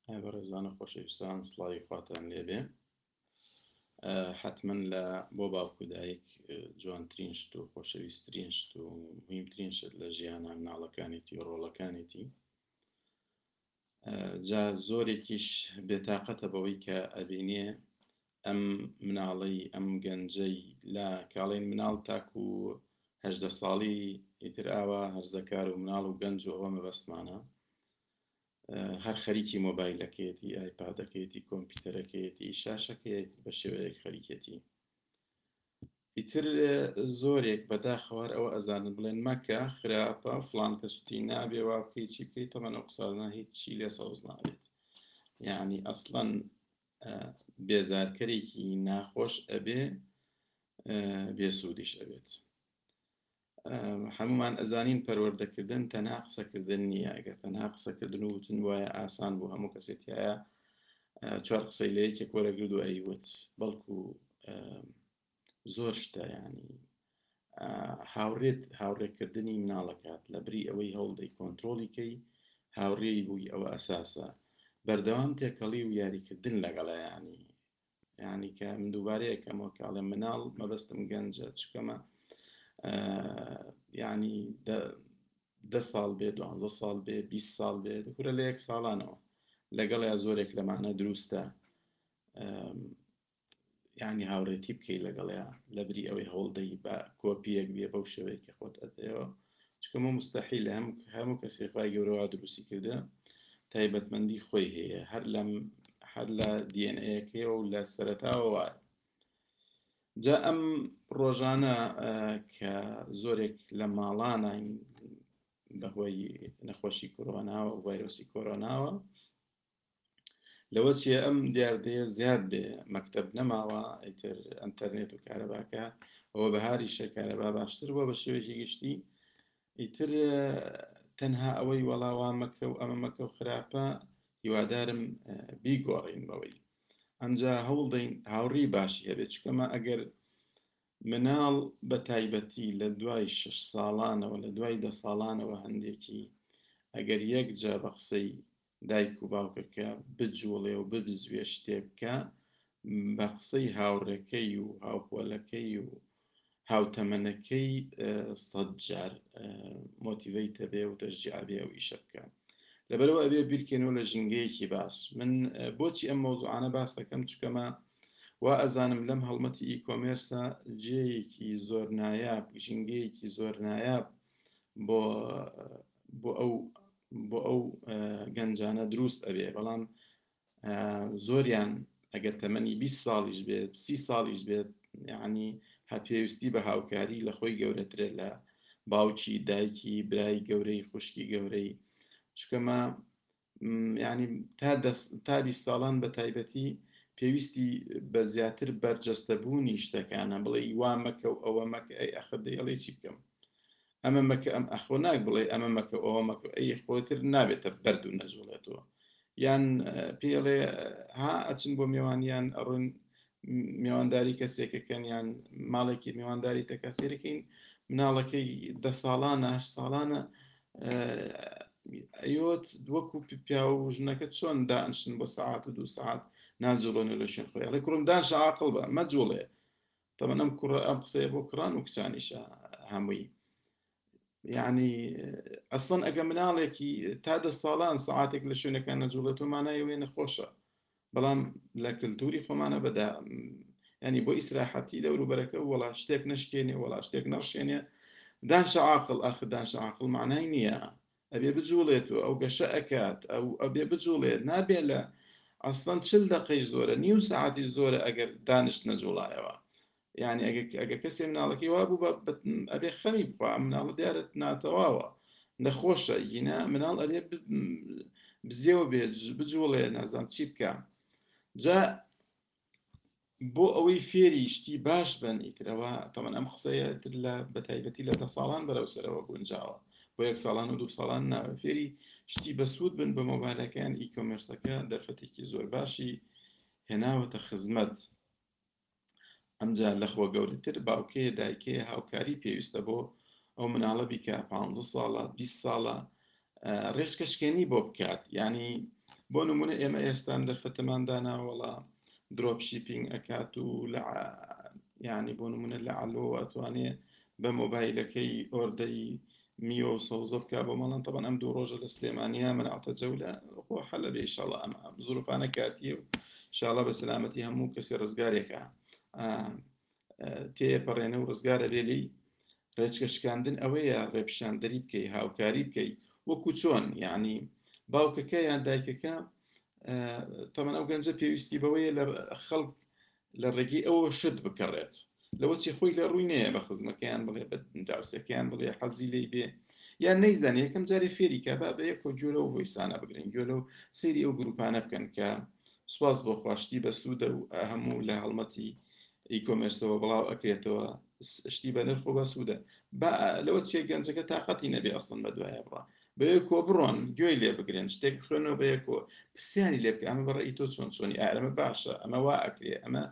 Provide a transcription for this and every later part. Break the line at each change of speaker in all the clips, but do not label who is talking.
ئای بەڕێزان و خۆشەویستان سڵاوی خواتان لێبێ حتمما لە بۆ باوک و دایک جوانترین شت و خۆشەویستترین شت و مهمترین شت لە ژیانە مناڵەکانێتی و ڕۆڵەکانێتی جا زۆرێکیش بێتاقەتە بەوەی کە ئەبینێ ئەم مناڵەی ئەم گەنجەی لە کاڵین مناڵ تاکو هەدە ساڵی ئیتر ئاوا هەرزەکار و مناڵ و گەنج و ئەوە مەبەستمانە هەر خەریکی مۆبایلەکەیەتی، ئایپادەکەیەتی، کۆمپیوتەرەکەیەتی، شاشەکەیەتی بە شێوەیەک خەریکێتی. ئیتر زۆرێک بەداخەوە هەر ئەوە ئەزانن بڵێن مەکە خراپە فڵان کەسوتی نابێ وا بکەی چی بکەی تەمەن ئەو قسانە هیچی لێ سەوز نابێت یعنی ئەسڵەن بێزارکەرێکی ناخۆش ئەبێ بێسوودیش ئەبێت. هەمومان ئەزانین پەروەردەکردن تەنها قسەکردن نییە ئەگەر تەنها قسەکردن و وتن وایە ئاسان بوو هەموو کەسێ تایە چوار قسەی لە یەکێک وەرەگرت و ئەیوت بەڵکو زۆر شتە ینی هاوڕێت هاوڕێکردنی مناڵەکات لە بری ئەوەی هەوڵدەی کۆنتترۆلی کەی هاوڕێی بووی ئەوە ئەساسە بەردەوام تێکەڵی و یاریکردن لەگەڵیانی یانی کە من دووبارەیە کەمەوە کە ئەڵێم مناڵ مەبەستم گەنجە چکەمە یعنی دە ساڵ بێ دوانزە ساڵ بێ 20 ساڵ بێ دەکورە لە یەک ساڵانەوە لەگەڵ یا زۆرێک لەمانە دروستە ینی هاوڕێتی بکەی لەگەڵیا لەبری ئەوەی هەوڵدەی بە کۆپیەک بێ بەو شێوەیە کە خۆت ئەتەوە چونکە مە مستحیلە هەم هەموو کەسێ خوای گەورە وا دروستی کردە تایبەتمەندی خۆی هەیە هەر لەم هەر لە دیەنەکەیەوە و لە سەرەتاوە وایە جا ئەم ڕۆژانە کە زۆرێک لە ماڵانین بەهۆی نەخۆشی کۆرۆناوە و ڤایرۆسی کۆرۆناوە لەوە چیە ئەم دیاردەیە زیاد بێ مەکتەب نەماوە ئیتر ئەتەرنێت و کارەباکە ئەوە بەهاریشە کارەبا باشتر بووە بە شێوەیەکی گشتی ئیتر تەنها ئەوەی وەڵاوا مەکە و ئەمە مەکە و خراپە هیوادارم بیگۆڕین بەوەی ئەمجا هەوڵدەین هاوڕی باشی هەبێت چکەمە ئەگەر مناڵ بە تایبەتی لە دوای شش ساڵانەوە لە دوای دە ساڵانەوە هەندێکی ئەگەر یەک جا بە قسەی دایک و باوکەکە بجوڵێ و ببزوێ شتێ بکا بە قسەی هاوڕێکەی و هاوپۆلەکەی و هاوتەمەنەکەی سەد جار مۆتیڤەیتە بێ و تەشجیع بێ ئەو ئیشە بکە لەبەرەوە ئەبێ بیرکەینەوە لە ژینگەیەکی باش من بۆچی ئەم مەوزوعانە باس دەکەم چکەمە وا ئەزانم لەم هەڵمەتی e-commerce ە جێیەکی زۆر نایاب ژینگەیەکی زۆر نایاب بۆ بۆ ئەو بۆ ئەو گەنجانە دروست ئەبێ بەڵام زۆریان ئەگەر تەمەنی 20 ساڵیش بێت سی ساڵیش بێت یعنی هە پێویستی بە هاوکاری لە خۆی گەورەترە لە باوکی دایکی برای گەورەی خوشکی گەورەی چکەمە ینی تا تا 20 ساڵان بە تایبەتی پێویستی بە زیاتر بەرجەستەبوونی شتەکانە بڵێ وا مەکە و ئەوە مەکە ئەی ئەخر دەیڵێ چی بکەم ئەمە مەکە ئەم ئەخۆ ناک بڵێ ئەمە مەکە ئەوە مەکە ئەی خۆتر نابێتە بەرد و نەجوڵێتەوە یان پێڵێ ها ئەچن بۆ میوانیان ئەڕۆن میوانداری کەسێکەکەن یان ماڵێکی میوانداری تەکا سێرەکەین مناڵەکەی دە ساڵانە هەشت ساڵانە ئەیۆت وەکو پیا و ژنەکە چۆن دانشن بۆ سەعات و دوو سەعات ناجوڵێن و لە شوێن خۆی ئەڵێ کوڕم دانشە عاقڵ بە مەجوڵێ تەمەن ئەم کوڕە ئەم قسەیە بۆ کوڕان و کچانیشە هەمووی یعنی ئەسڵەن ئەگە مناڵێکی تا دە ساڵان سەعاتێک لە شوێنەکان نەجوڵێتەوە مانای ئەوەیە نەخۆشە بەڵام لە کللتوری خۆمانە بەدا ینی بۆ ئیسراحەتی دەوروبەرەکە وەڵا شتێک نشکێنێ وەڵا شتێک نەڕشێنێ دانشە عاقڵ ئاخر دانشە عاقڵ معنای نییە ئەبێ بجوڵێت و ئەو گەشە ئەکات ئەو ئەبێ بجوڵێت نابێ لە ئەسڵەن چل دەقەیش زۆرە نیو سەعاتیش زۆرە ئەگەر دانیشت نەجوڵایەوە یعنی ئەگەر ئەگەر کەسێ مناڵەکەی وا بوو ئەبێ خەمی بخوا ئەم مناڵە دیارە ناتەواوە نەخۆشە ینا مناڵ ئەبێ بزێوە بێت بجوڵێ نازام چی بکە جا بۆ ئەوەی فێری شتی باش بن ئیترەوە تەمەن ئەم قسەیە تر لە بەتایبەتی لە دە ساڵان بەرەو سەرەوە گونجاوە بۆ یەک ساڵان و دوو ساڵان ناوە فێری شتی بەسوود بن بە مۆبایلەکەیان e-commerce ەکە دەرفەتێکی زۆر باشی هێناوەتە خزمەت ئەمجا لەخۆ گەورەتر باوکەیە دایکەیە هاوکاری پێویستە بۆ ئەو مناڵە بیکە پ ساڵە 20 ساڵە ڕێچکە شکێنی بۆ بکات یعنی بۆ نمونە ئێمە ئێستام دەرفەتەمان داناوەڵا drop shipping ئەکات و لە یعنی بۆ نمونە لە ئەلۆ ئەتوانێ بە مۆبایلەکەی order ی میوە و سەوزە بکا بۆ ماڵان. تەبەن ئەم دوو ڕۆژە لە سلێمانیا منعتە جەولە خۆ حەلە بێ ئیشاڵا، ئەم زروفانە کاتیە و ئیشاڵا بە سەلامەتی هەموو کەسی ڕزگارێکە تێپەڕێنە و ڕزگارە بێ لێی. ڕێچکە شکاندن ئەوەیە ڕێپیشاندەری بکەی، هاوکاری بکەی، وەکو چۆن یعنی باوکەکە یان دایکەکە تەمەن ئەو گەنجە پێویستی بەوەیە لە خەڵک لە ڕێگەی ئەوە شت بکڕێت، لەوە چی خۆی لە ڕووی نەیە بە خزمەکەیان بڵێ، بە دراوسێکەیان بڵێ، حەزی لێی بێ یان نەیزانێ، یەکەم جارێ فێری کە با بە یەکۆ گوێ لەو voice انە بگرن، گوێ لەو سەیری ئەو گروپانە بکەن کە سوپاس بۆ خوا شتی بەسوودە و هەموو لە هەڵمەتی e-commerce ەوە بڵاو ئەکرێتەوە، شتی بە نرخ و بەسوودە. با لەوە چیە گەنجەکە تاقەتی نەبێ ئەسڵن بە دوایە بڕا، بەیەکۆ بڕۆن گوێی لێ بگرن، شتێک بخوێنەوە بەیەکۆ، پرسیاری لێ بکە ئەمە بەڕێی تۆ چۆن چۆنی، ئا ئەمە باشە، ئەمە وا ئەکرێ، ئەمە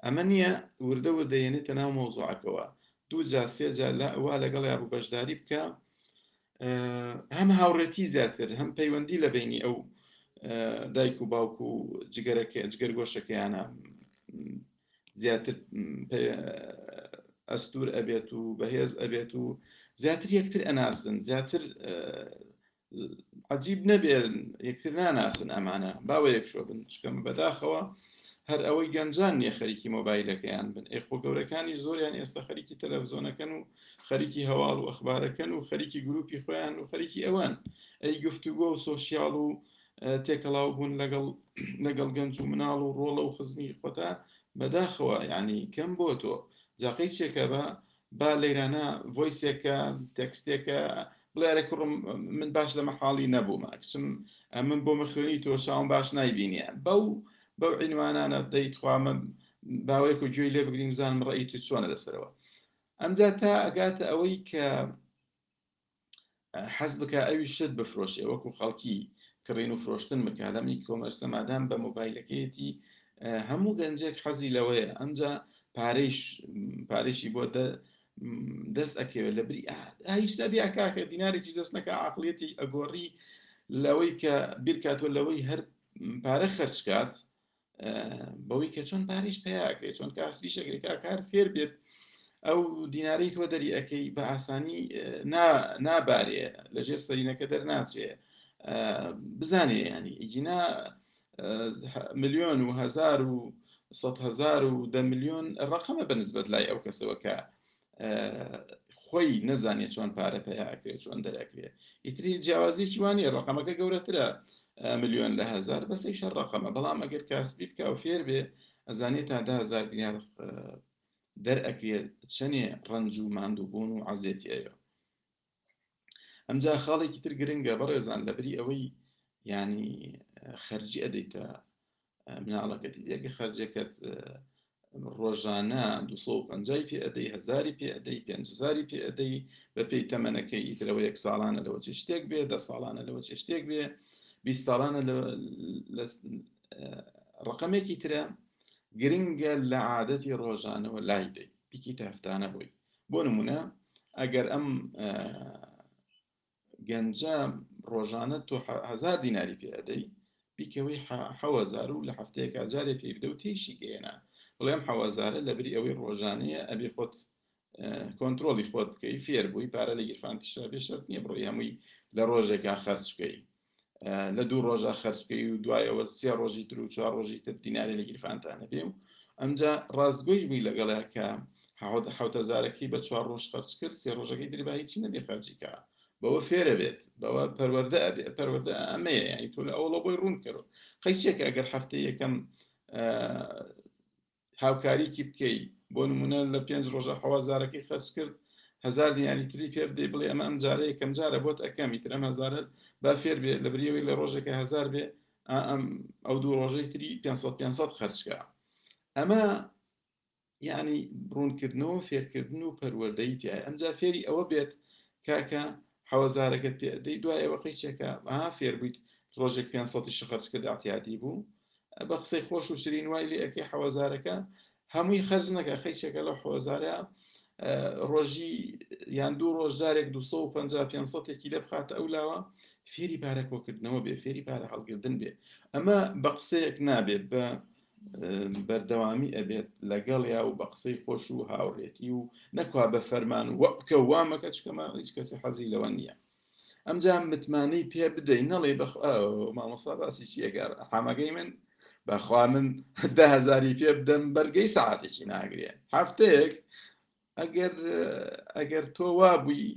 ئەمە نییە. وردە وردە یەنێتە ناو مەوزوعەکەوە، دوو جار سێ جار لە وا لەگەڵیا بوو بەشداری بکە، هەم هاوڕێتی زیاتر، هەم پەیوەندی لە بینی ئەو دایک و باوک و جگەرەکە جگەرگۆشەکەیانە زیاتر ئەستور ئەبێت و بەهێز ئەبێت و زیاتر یەکتر ئەناسن. زیاتر عجیب نەبێت یەکتر ناناسن، ئەمانە باوە یەک شۆ بن، چکەم بەداخەوە هەر ئەوەی گەنجان نییە خەریکی مۆبایلەکەیان بن، ئێ خۆ گەورەکانی زۆریان ئێستا خەریکی تەلەڤزیۆنەکەن و خەریکی هەواڵ و ئەخبارەکەن و خەریکی گروپی خۆیان و خەریکی ئەوان. ئەی گفتوگۆ و social و تێکەڵاو بوون لەگەڵ گەنج و مناڵ و ڕۆڵە و خزمی خۆتا بەداخەوە یعنی کەم بۆ تۆ جاقەی چێکە بە با لەیرانە voice ێکە، text ێکە، بڵێ ئەرێ کوڕم من باش لە مەحاڵی نەبوومە، کچم من بۆ مەخوێنی تۆ چاوم باش نایبینیە، بەو عینوانانە دەی تخوا من باوەیەک و گوێی لێ بگریم بزانم ڕەئی تو چۆنە لەسەرەوە. ئەمجا تا ئەگاتە ئەوەی کە حەز بکە ئەوی شت بفرۆشێ، وەکو خەڵکی کڕین و فرۆشتن بکە لەم e-commerce ە، مادام بە مۆبایلەکەیەتی هەموو گەنجێک حەزی لەوەیە. ئەمجا پارەیش پارێشی بۆ دەست ئەکەوێت، لە بری هیچ نەبی کاکە دینارێکیش دەست نەکە عقلیەتی ئەگۆڕی لەوەی کە بیرکاتەوە لەوەی هەر پارە خەرجکات بەوەی کە چۆن پارەیش پیاکرێ، چۆن کاسبیش ئەکرێ، کاکار فێر بێت ئەو دینارەی تۆ دەری ئەەکەی بە ئاسانی نابارێ لەژێر سەرینەکە دەرناچێ، بزانێ ینی ئیگینا ملیۆن و هزار و سەد هزار و دە ملیۆن ڕقەمە بە نسبەت لای ئەو کەسەوە کە خۆی نەزانێت چۆن پارە پەیا ئەکرێت، چۆن دەرەکرێت. ئیتری جیاوازیەکی وانە، ڕقەمەکە گەورەترە ملیۆن لە هزار، بەسەی شەر ڕقەمە. بەڵام ئەگەر کاسبی بکە و فێر بێ ئەزانێت تا 10,000 دینار دەرئەکرێت چەنێ ڕەنج و ماندووبوون و عەزێتی ئەوێ. ئەمجا خاڵێکی تر گرنگە بەڕێزان، لەبری ئەوەی ینی خەرجی ئەدەیتە مناڵەکەتی، یەکە خەرجەکەت ڕۆژانە 250 پێ ئەدەی، هزاری پێ ئەدەی، 5,000 پێ ئەدەی بە پێی تەمەنەکەی، ئیترەوە یەک ساڵانە لەوە چێ شتێک بێ، 10 ساڵانە لەوە چێ شتێک بێ، 20 ساڵانە لە ڕقەمێکی ترە. گرنگە لە عادەتی ڕۆژانەوە لای دەی بیکەیتە هەفتانە بۆی. بۆ نمونە ئەگەر ئەم گەنجە ڕۆژانە تۆ هزار دیناری پێ ئەدەی، بیکەوەی 7,000 و لە هەفتەیەکا جارێ پێی بدە و تێیشی گەیەنە، بڵێم 7,000ە لەبری ئەوەی ڕۆژانەیە ئەبێ خۆت کۆنترۆڵی خۆت بکەی، فێر بووی پارە لە گیرفانتیشا بێ، شەرت نییە بڕۆی هەمووی لە ڕۆژێکا خەرج بکەی، لە دوو ڕۆژە خەرج بکەی و دوایەوە سێ ڕۆژی تر و چوار ڕۆژی تر دیناری لە گیرفانتانە بێ. و ئەمجا ڕاستگۆیش بووی لەگەڵە کە حوتەزارەکەی بە چوار ڕۆژ خەرج کرد، سێ ڕۆژەکەی تری با هیچی نەبێ خەرجی کە، بەوە فێرە بێت، بەوە پەروەردە ئەبێ. پەروەردە ئەمەیە، یعنی تۆ لە ئەوڵە بۆی ڕوون کەرەوە. قەیچێکە ئەگەر هەفتەی یەکەم هاوکاریکی بکەی، بۆ نمونە لە پێنج ڕۆژە حەوازارەکەی خەرج کرد، هزار دیناری تری پێ بدەی، بڵێ ئەمە ئەم جارە یەکەم جارە بۆت ئەکەم، ئیتر ئەم هزارە با فێر بێ لە بریەوەی لە ڕۆژێکە هزار بێ، ئەم ئەو دوو ڕۆژەی تری 500 500 خەرجکە. ئەمە یعنی ڕوونکردنەوە، فێرکردن و پەروەردەی تایە. ئەمجا فێری ئەوە بێت کاکە حەوەزارەکەت پێ دەی، دوای ئەوە قەیچێکە ها فێر بوویت ڕۆژێک 500 خەرج کرد، اعتیادی بوو، بە قسەی خۆش و شرین وای لێ ئەکەی حەوەزارەکە هەمووی خەرج نەکە، قەیچێکە لەو حەوەزارە ڕۆژی یان دوو ڕۆژ جارێک 250 500 لێ بخاتە ئەو لاوە. فێری پارە کۆکردنەوە بێ، فێری پارە هەڵگردن بێ. ئەمە بە قسەیەک نابێ، بە بەردەوامی ئەبێت لەگەڵیا و بە قسەی خۆش و هاوڕێتی و نەکوا بە فەرمان و وە بکە و وا مەکە، چونکە هیچ کەسی حەزی لەوە نییە. ئەمجا متمانەی پێ بدەی، نەڵێ بەخوا مامۆستا باسی چیەکە حامەکەی من، بەخوا من 10,000ی پێ بدەم بەرگەی سەعاتێکی ناگرێ، هەفتەیەک. ئەگەر ئەگەر تۆ وابووی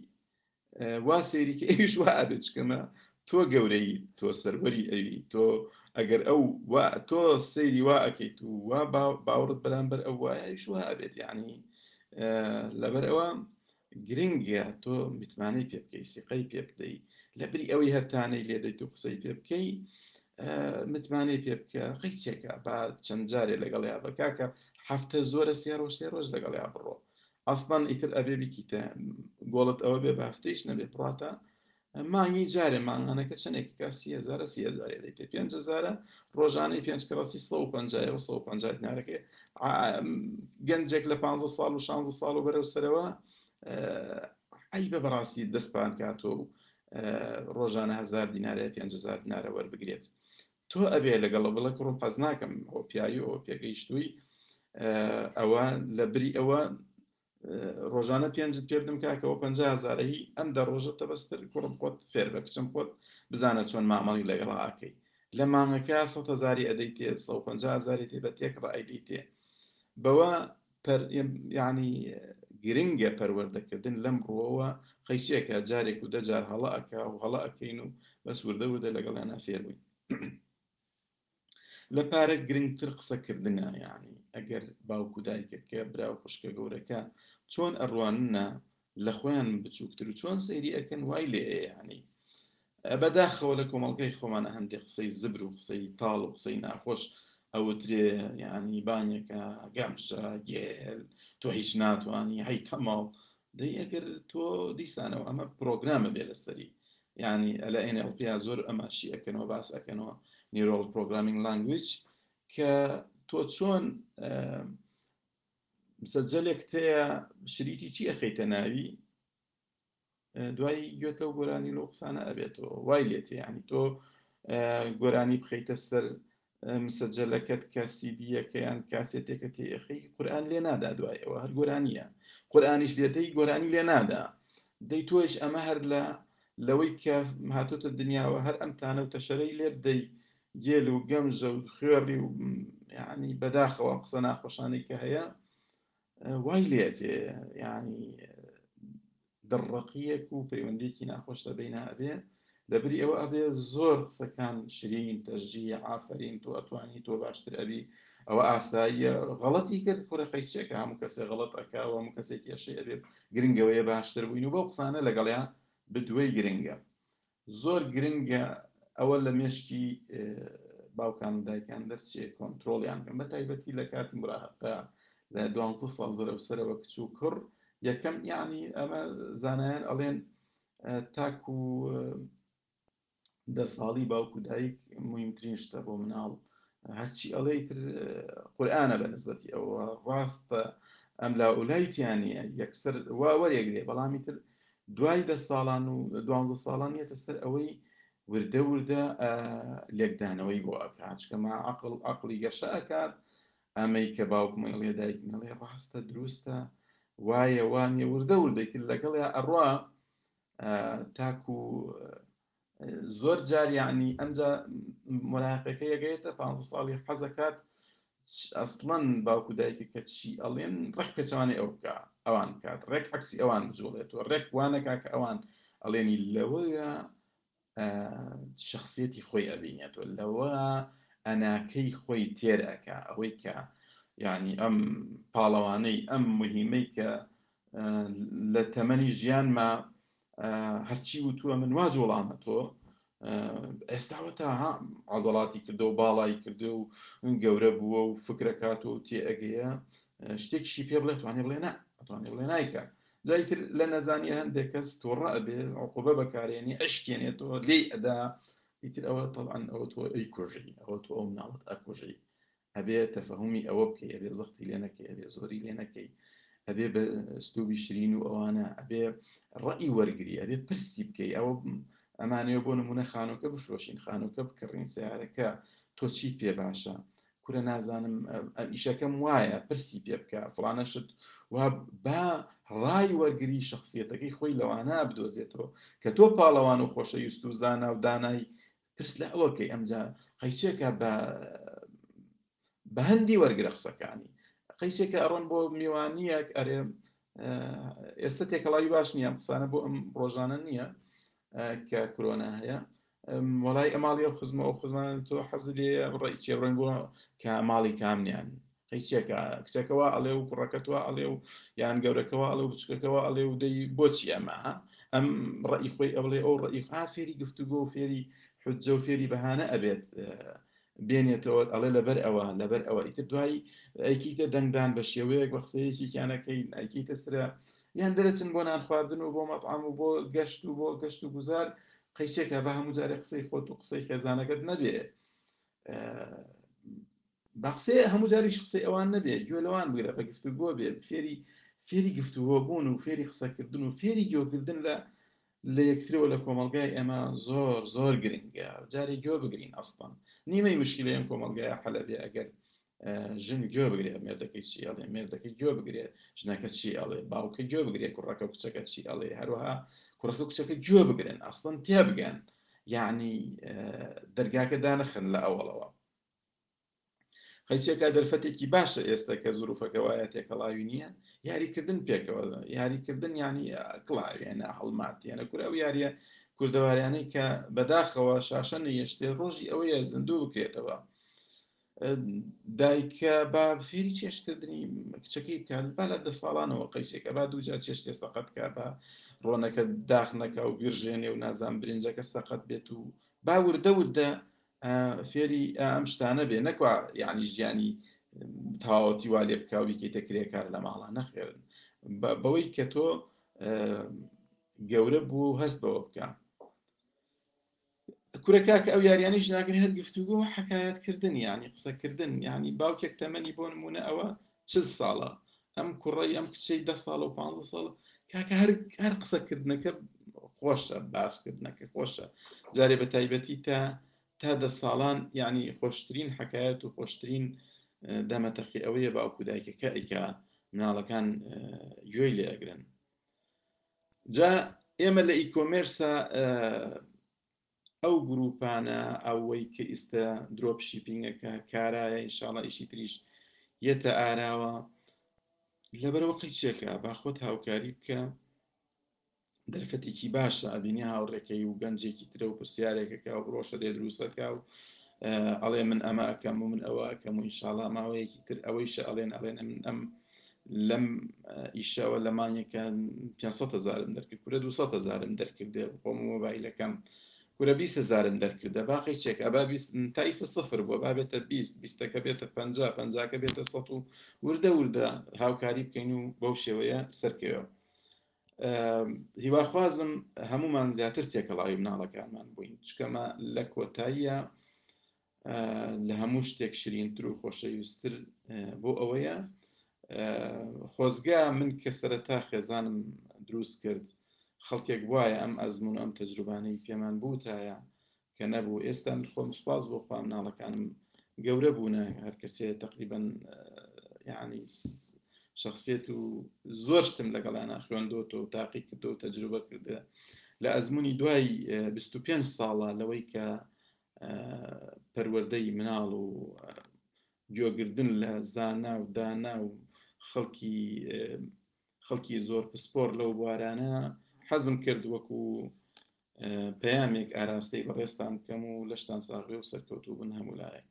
وا سەیری کە ئەویش وا ئەبێت، چکەمە تۆ گەورەی، تۆ سەروەری ئەوی، تۆ ئەگەر ئەو وا تۆ سەیری وا ئەکەیت و وا باوەڕت بەرامبەر ئەو وایە، ئەویش وا ئەبێت. یعنی لەبەر ئەوە گرنگە تۆ متمانەی پێ بکەی، سیقەی پێ بدەی، لە بری ئەوەی هەرتانەی لێ دەیت و قسەی پێ بکەی، متمانەی پێ بکە. قەیچێکە با چەند جارێ لەگەڵیا بە کاکە، هەفتە زۆرە، سێ ڕۆژ سێ ڕۆژ لەگەڵیا بڕۆ. ئەسڵەن ئیتر ئەبێ بیکیتە گۆڵت، ئەوە بێ بە هەفتەیش نەبێ بڕاتە مانگی جارێ. مانگانەکە چەندێک کە 30,000ە، 30,000 دەیتێ، 5,000ە، ڕۆژانەی پێنج کڕەسی 150 و 150 دینارەکەی. گەنجێک لە 15 ساڵ و 16 ساڵ و بەرەو سەرەوە عەیبە بەڕاستی دەستپان کاتۆ و ڕۆژانە 1000 دینارە، 5000 دینارە وەربگرێت. تۆ ئەبێ لەگەڵ بڵێ کوڕم حەز ناکەم، ئەوە پیاوی، ئەوە پێگەیشتووی، ئەوە لە بری ئەوە ڕۆژانە پێنجت پێ بدەم کاکەوە 50,000ە هی ئەم دە ڕۆژە تەبەستر، کوڕم خۆت فێر بە، کچم خۆت بزانە چۆن مامەڵی لەگەڵا ئەکەی. لە مانگەکە 100,000ی ئەدەی تێ، 150,000ی تێ، بە تێکڕا ئەیدەی تێ. بەوە یعنی گرنگە پەروەردەکردن لەم ڕووەوە. قەیچێکە جارێک و دەجار هەڵە ئەکا و هەڵە ئەکەین و بەس وردە وردە لەگەڵیانە فێر بووین. لە پارە گرنگتر قسەکردنە، یعنی ئەگەر باوک و دایکەکە، برا و خوشکە گەورەکە چۆن ئەڕواننە لە خۆیان بچووکتر و چۆن سەیری ئەکەن وای لێ. یعنی بەداخەوە لە کۆمەڵگای خۆمانە هەندێک قسەی زبر و قسەی تاڵ و قسەی ناخۆش ئەوترێ، یعنی بانێکە گەمژە، گێل، تۆ هیچ ناتوانی، هەی تەماڵ. دەی ئەگەر تۆ دیسانەوە ئەمە پرۆگرامە بێ لەسەری، یعنی لە NLP زۆر ئەماشی ئەکەنەوە، باس ئەکەنەوە، neural programming language، کە تۆ چۆن مسەجەلێک تەیە شریتی چی ئەخەیتە ناوی، دوای گوێت لەو گۆرانی لەو قسانە ئەبێتەوە وای لێتێ. یعنی تۆ گۆرانی بخەیتە سەر مسەجەلەکەت کە سیدیەکە یان کاسێتێکە تێئەخەی، قورئان لێ نادا، دوای ئەوە هەر گۆرانیە. قورئانیش لێدەی گۆرانی لێ نادا. دەی تۆش ئەمە هەر لە لەوەی کە هاتۆتە دنیاوە هەر ئەم تانە و تەشەرەی لێ بدەی، گێل و گەمژە و خوێڕی و یعنی بەداخەوە قسە ناخۆشانەی کە هەیە وای لێتێ، یعنی دڕڕەقییەک و پەیوەندییەکی ناخۆش لە بەینا ئەبێ. لەبری ئەوە ئەبێ زۆر قسەکان شرین، تەشجیع، ئافەرین، تۆ ئەتوانی، تۆ باشتر ئەبی، ئەوە ئاساییە، غەڵەتی کرد کوڕە قەیچێکە، هەموو کەسێ غەڵەت ئەکا و هەموو کەسێک کێشەی ئەبێ، گرنگەوەیە باشتر بووین و بەو قسانە لەگەڵیا بدوێی گرنگە. زۆر گرنگە ئەوە لە مێشکی باوکان و دایکان دەرچێ کۆنتترۆڵیان بکەن، بە تایبەتی لە کاتی مراهقە لە 12 ساڵ بەرەو سەرەوە کچ و کوڕ. یەکەم یعنی ئەمە زانایان ئەڵێن تاکو دە ساڵی باوک و دایک مهمترین شتە بۆ مناڵ، هەرچی ئەڵێ تر قورآانە بە نسبەتی ئەوە ڕاستە، ئەم لا ئولایتیانە یەکسەر وا وەرێگرێ. بەڵامی تر دوای دە ساڵان و دوانزە ساڵان یەتە سەر ئەوەی وردە وردە لێکدانەوەی بۆ ئەکات، چکەمە عقل عقلی گەشە ئەکات. ئەمەی کە باوکم ئەڵێ دایکم ئەڵێ ڕاستە، دروستە، وایە وانە، وردە وردەی تر لەگەڵیا ئەڕوا تاکو زۆر جار یعنی ئەمجا مراقەکە یەگەیەتە پ ساڵی حەزەکات ئەسڵەن باوکو دایکە کە چی ئەڵێن ڕێک پێچوانەی ئەو بکە ئەوان بکات، ڕێک عکسی ئەوان بجوڵێتەوە، ڕێک وانەکا کە ئەوان ئەڵێنی. لەوەیە شخصیەتی خۆی ئەبینێتەوە، لەوە ئەناکەی خۆی تێر ئەکا، ئەوەی کە یعنی ئەم پاڵەوانەی ئەم مهمەی کە لە تەمەنی ژیانما هەرچی وتووە من وا جوڵامە تۆ ئێستاوە تا عزەڵاتی کردو و باڵای کردو و گەورە بووە و فکرەکات و تێ ئەگەیە، شتێکیشی پێ بڵێ توانێ بڵێ نا، ئەتوانێ بڵێ نایکە. جایتر لە نەزانیە هەندێک کەس تووڕە ئەبێ، عقوبە بەکارێنی، ئەشکێنێتەوە، لێی ئەدا. ئیتر ئەوە طبعا ئەوە تۆ ئەی کوژی، ئەوە تۆ ئەو مناڵت ئەکوژی. ئەبێ تەفەهومی ئەوە بکەی، ئەبێ زەختی لێ نەکەی، ئەبێ زۆری لێ نەکەی، ئەبێ بە ئسلوبی شرین و ئەوانە، ئەبێ ڕەئی وەرگری، ئەبێ پرسی بکەی. ئەوە ئەمانەوە بۆ نمونە خانووکە بفرۆشین خانووکە بکڕین سیارەکە تۆ چیت پێ باشە کورە نازانم ئیشەکەم وایە پرسی پێ بکە فڵانە شت و با ڕای وەرگری شخصیەتەکەی خۆی لەوانە بدۆزێتەوە کە تۆ پاڵەوان و خۆشەویست و زانا و دانای پرس لە ئەوەکەی ئەمجا قەیچێکە بە بە هەندی وەرگرە قسەکانی قەیچێکە ئەڕۆن بۆ میوانیەک ئەرێ ئێستا تێکەڵاوی باش نییە قسانە بۆ ئەم ڕۆژانە نییە کە کرۆنا هەیە وەڵای ئەماڵی ئەو خزمە ئەو خزمان تۆ حەز لێ ڕێی چێ ڕۆین بۆ کە ماڵی کامنیان قەیچێکە کچەکەەوە ئەڵێ و کوڕەکەتوە ئەڵێ و یان گەورەکەەوە ئەڵێ و بچکەکەەوە ئەڵێ و دەی بۆچی ئەمە ئەم ڕئی خۆی ئەڵێ ئەو ڕئی ها فێری گفتوگۆ و فێری حجە و فێری بەهانە ئەبێت بێنێتەوە ئەڵێ لەبەر ئەوە لەبەر ئەوە ئیتر دوای ئەیکیتە دەنگدان بە شێوەیەک بە قسەیەکیانەکەی ئەیکیتە سرە یان دەرەچن بۆ نان خواردن و بۆ مەطعام و بۆ گەشت و بۆ گەشت و گوزار قەیچێکە بە هەموو جارێ قسەی خۆت و قسەی خێزانەکەت نەبێ بە قسەی هەموو جاریش قسەی ئەوان نەبێ گوێ لەوان بگرە بە گفتوگۆ بێ فێری فێری گفتوگۆ بوون و فێری قسەکردن و فێری گوێکردن لە لە یەکترەوە لە کۆمەڵگای ئێمە زۆر زۆر گرنگە جارێ گوێ بگرین ئەسڵەن نیمەی مشکلەی ئەم کۆمەڵگایە حەلە بێ ئەگەر ژن گوێ بگرێ مێردەکەی چی ئەڵێ مێردەکەی گوێ بگرێ ژنەکە چی ئەڵێ باوکە گوێ بگرێ کوڕەکە و کچەکە چی ئەڵێ هەروەها کوڕەکە و کچەکە گوێ بگرن ئەسڵەن تێبگەن یعنی دەرگاکە دانەخەن لە ئەوەڵەوە قەیچێکا دەرفەتێکی باشە ئێستا کە زروفەکە وایە تێکەڵاوی نییە یاریکردن پێکەوە یاریکردن ینی کڵاوێنە هەڵماتیانە کورە ئەو یاریە کوردەواریانەی کە بەداخەوە شاشە نەیەشتێ ڕۆژی ئەوەیە زیندوو بکرێتەوە دایکە با فێری چێشتکردنی کچەکەی بکات با لە دە ساڵانەوە قەیچێکە با دووجار چێشتێ سەقەت کە بە ڕۆنەکە داخ نەکا و بیرژێنێ و نازان برنجەکە سەقەت بێت و با وردە وردە فێری ئەم شتانە بێ نەکوا یعنی ژیانی تەواوەتی وا لێ بکە و بیکەیتە کرێکار لە ماڵە نەخێرن بەوەی کە تۆ گەورە بوو و هەست بەوە بکە کورە کاکە ئەو یاریانیش ناگرن هەر گفتوگۆ و حکایەت کردن یعنی قسەکردن یعنی باوکێک تەمەنی بۆ نمونە ئەوە چل ساڵە ئەم کوڕی ئەم کچەی دە ساڵ و پ ساڵ کاکە هەر هەر قسەکردنەکە خۆشە باسکردنەکە خۆشە جارێ بە تایبەتی تا تا دە ساڵان یعنی خۆشترین حکایەت و خۆشترین دەمەتەقی ئەوەیە باوکو دایکەکە ئەیکا مناڵەکان گوێی لێ ئەگرن جا ئێمە لە e-commerce ا ئەو گروپانە ئەوەی کە ئیستا drop shipping ەکە کارایە ئینشاڵا ئیشی تریش یەتە ئاراوە لەبەرەوە قیچێکە با خۆت هاوکاری بکە دەرفەتێکی باشە ئەبینی هاوڕێکەی و گەنجێکی ترە و پرسیارێکەکە و ڕۆشە دێ دروستەکە و ئەڵێ من ئەمە ئەەکەم و من ئەوە ئەەکەم و ئینشاڵا ماوەیەکی تر ئەوەیشە ئەڵێن ئەڵێن ئەمن ئەم لەم ئیشەوە لە مانگێکە 500 هزارم دەرکرد کورە 200 هزارم دەرکردێ خۆم مۆبایلەکەم کورە 20 هزارم دەرکردە باقی چێک ئەبا تا ئیسە سفر بووە با بێتە 20 بیستەکە بێتە 50 پەنجاکە بێتە 100 و وردە وردە هاوکاری بکەین و بەو شێوەیە سەرکەوێ هیواخوازم هەمومان زیاتر تێکەڵاوی مناڵەکانمان بووین چکەمە لە کۆتاییە لە هەموو شتێک شرینتر و خۆشەویستتر بۆ ئەوەیە خۆزگا من کە سەرەتا خێزانم دروست کرد خەڵکێک وایە ئەم ئەزمون ئەم تەجروبانەی پێمان بوتایە کە نەبوو ئێستا من خۆم سپاس بۆ خوا مناڵەکانم گەورە بوونە هەر کەسێ تقریبا یعنی شخصیت و زۆر شتم لەگەڵیانە خوێندۆتەوە و تاقی کردو و تەجروبە کردە لە ئەزمموی دوای 25 ساڵە لەوەی کە پەروەردەی مناڵ و گوێگردن لە زانا و دانا و خەڵکی خەڵکی زۆر پسپۆر لەو بوارانە حەزم کرد وەکو پەیامێک ئاراستەی بەڕێزتان بکەم و لەشتان ساغبێ و سەرکەوتوو بن هەموو لایەک.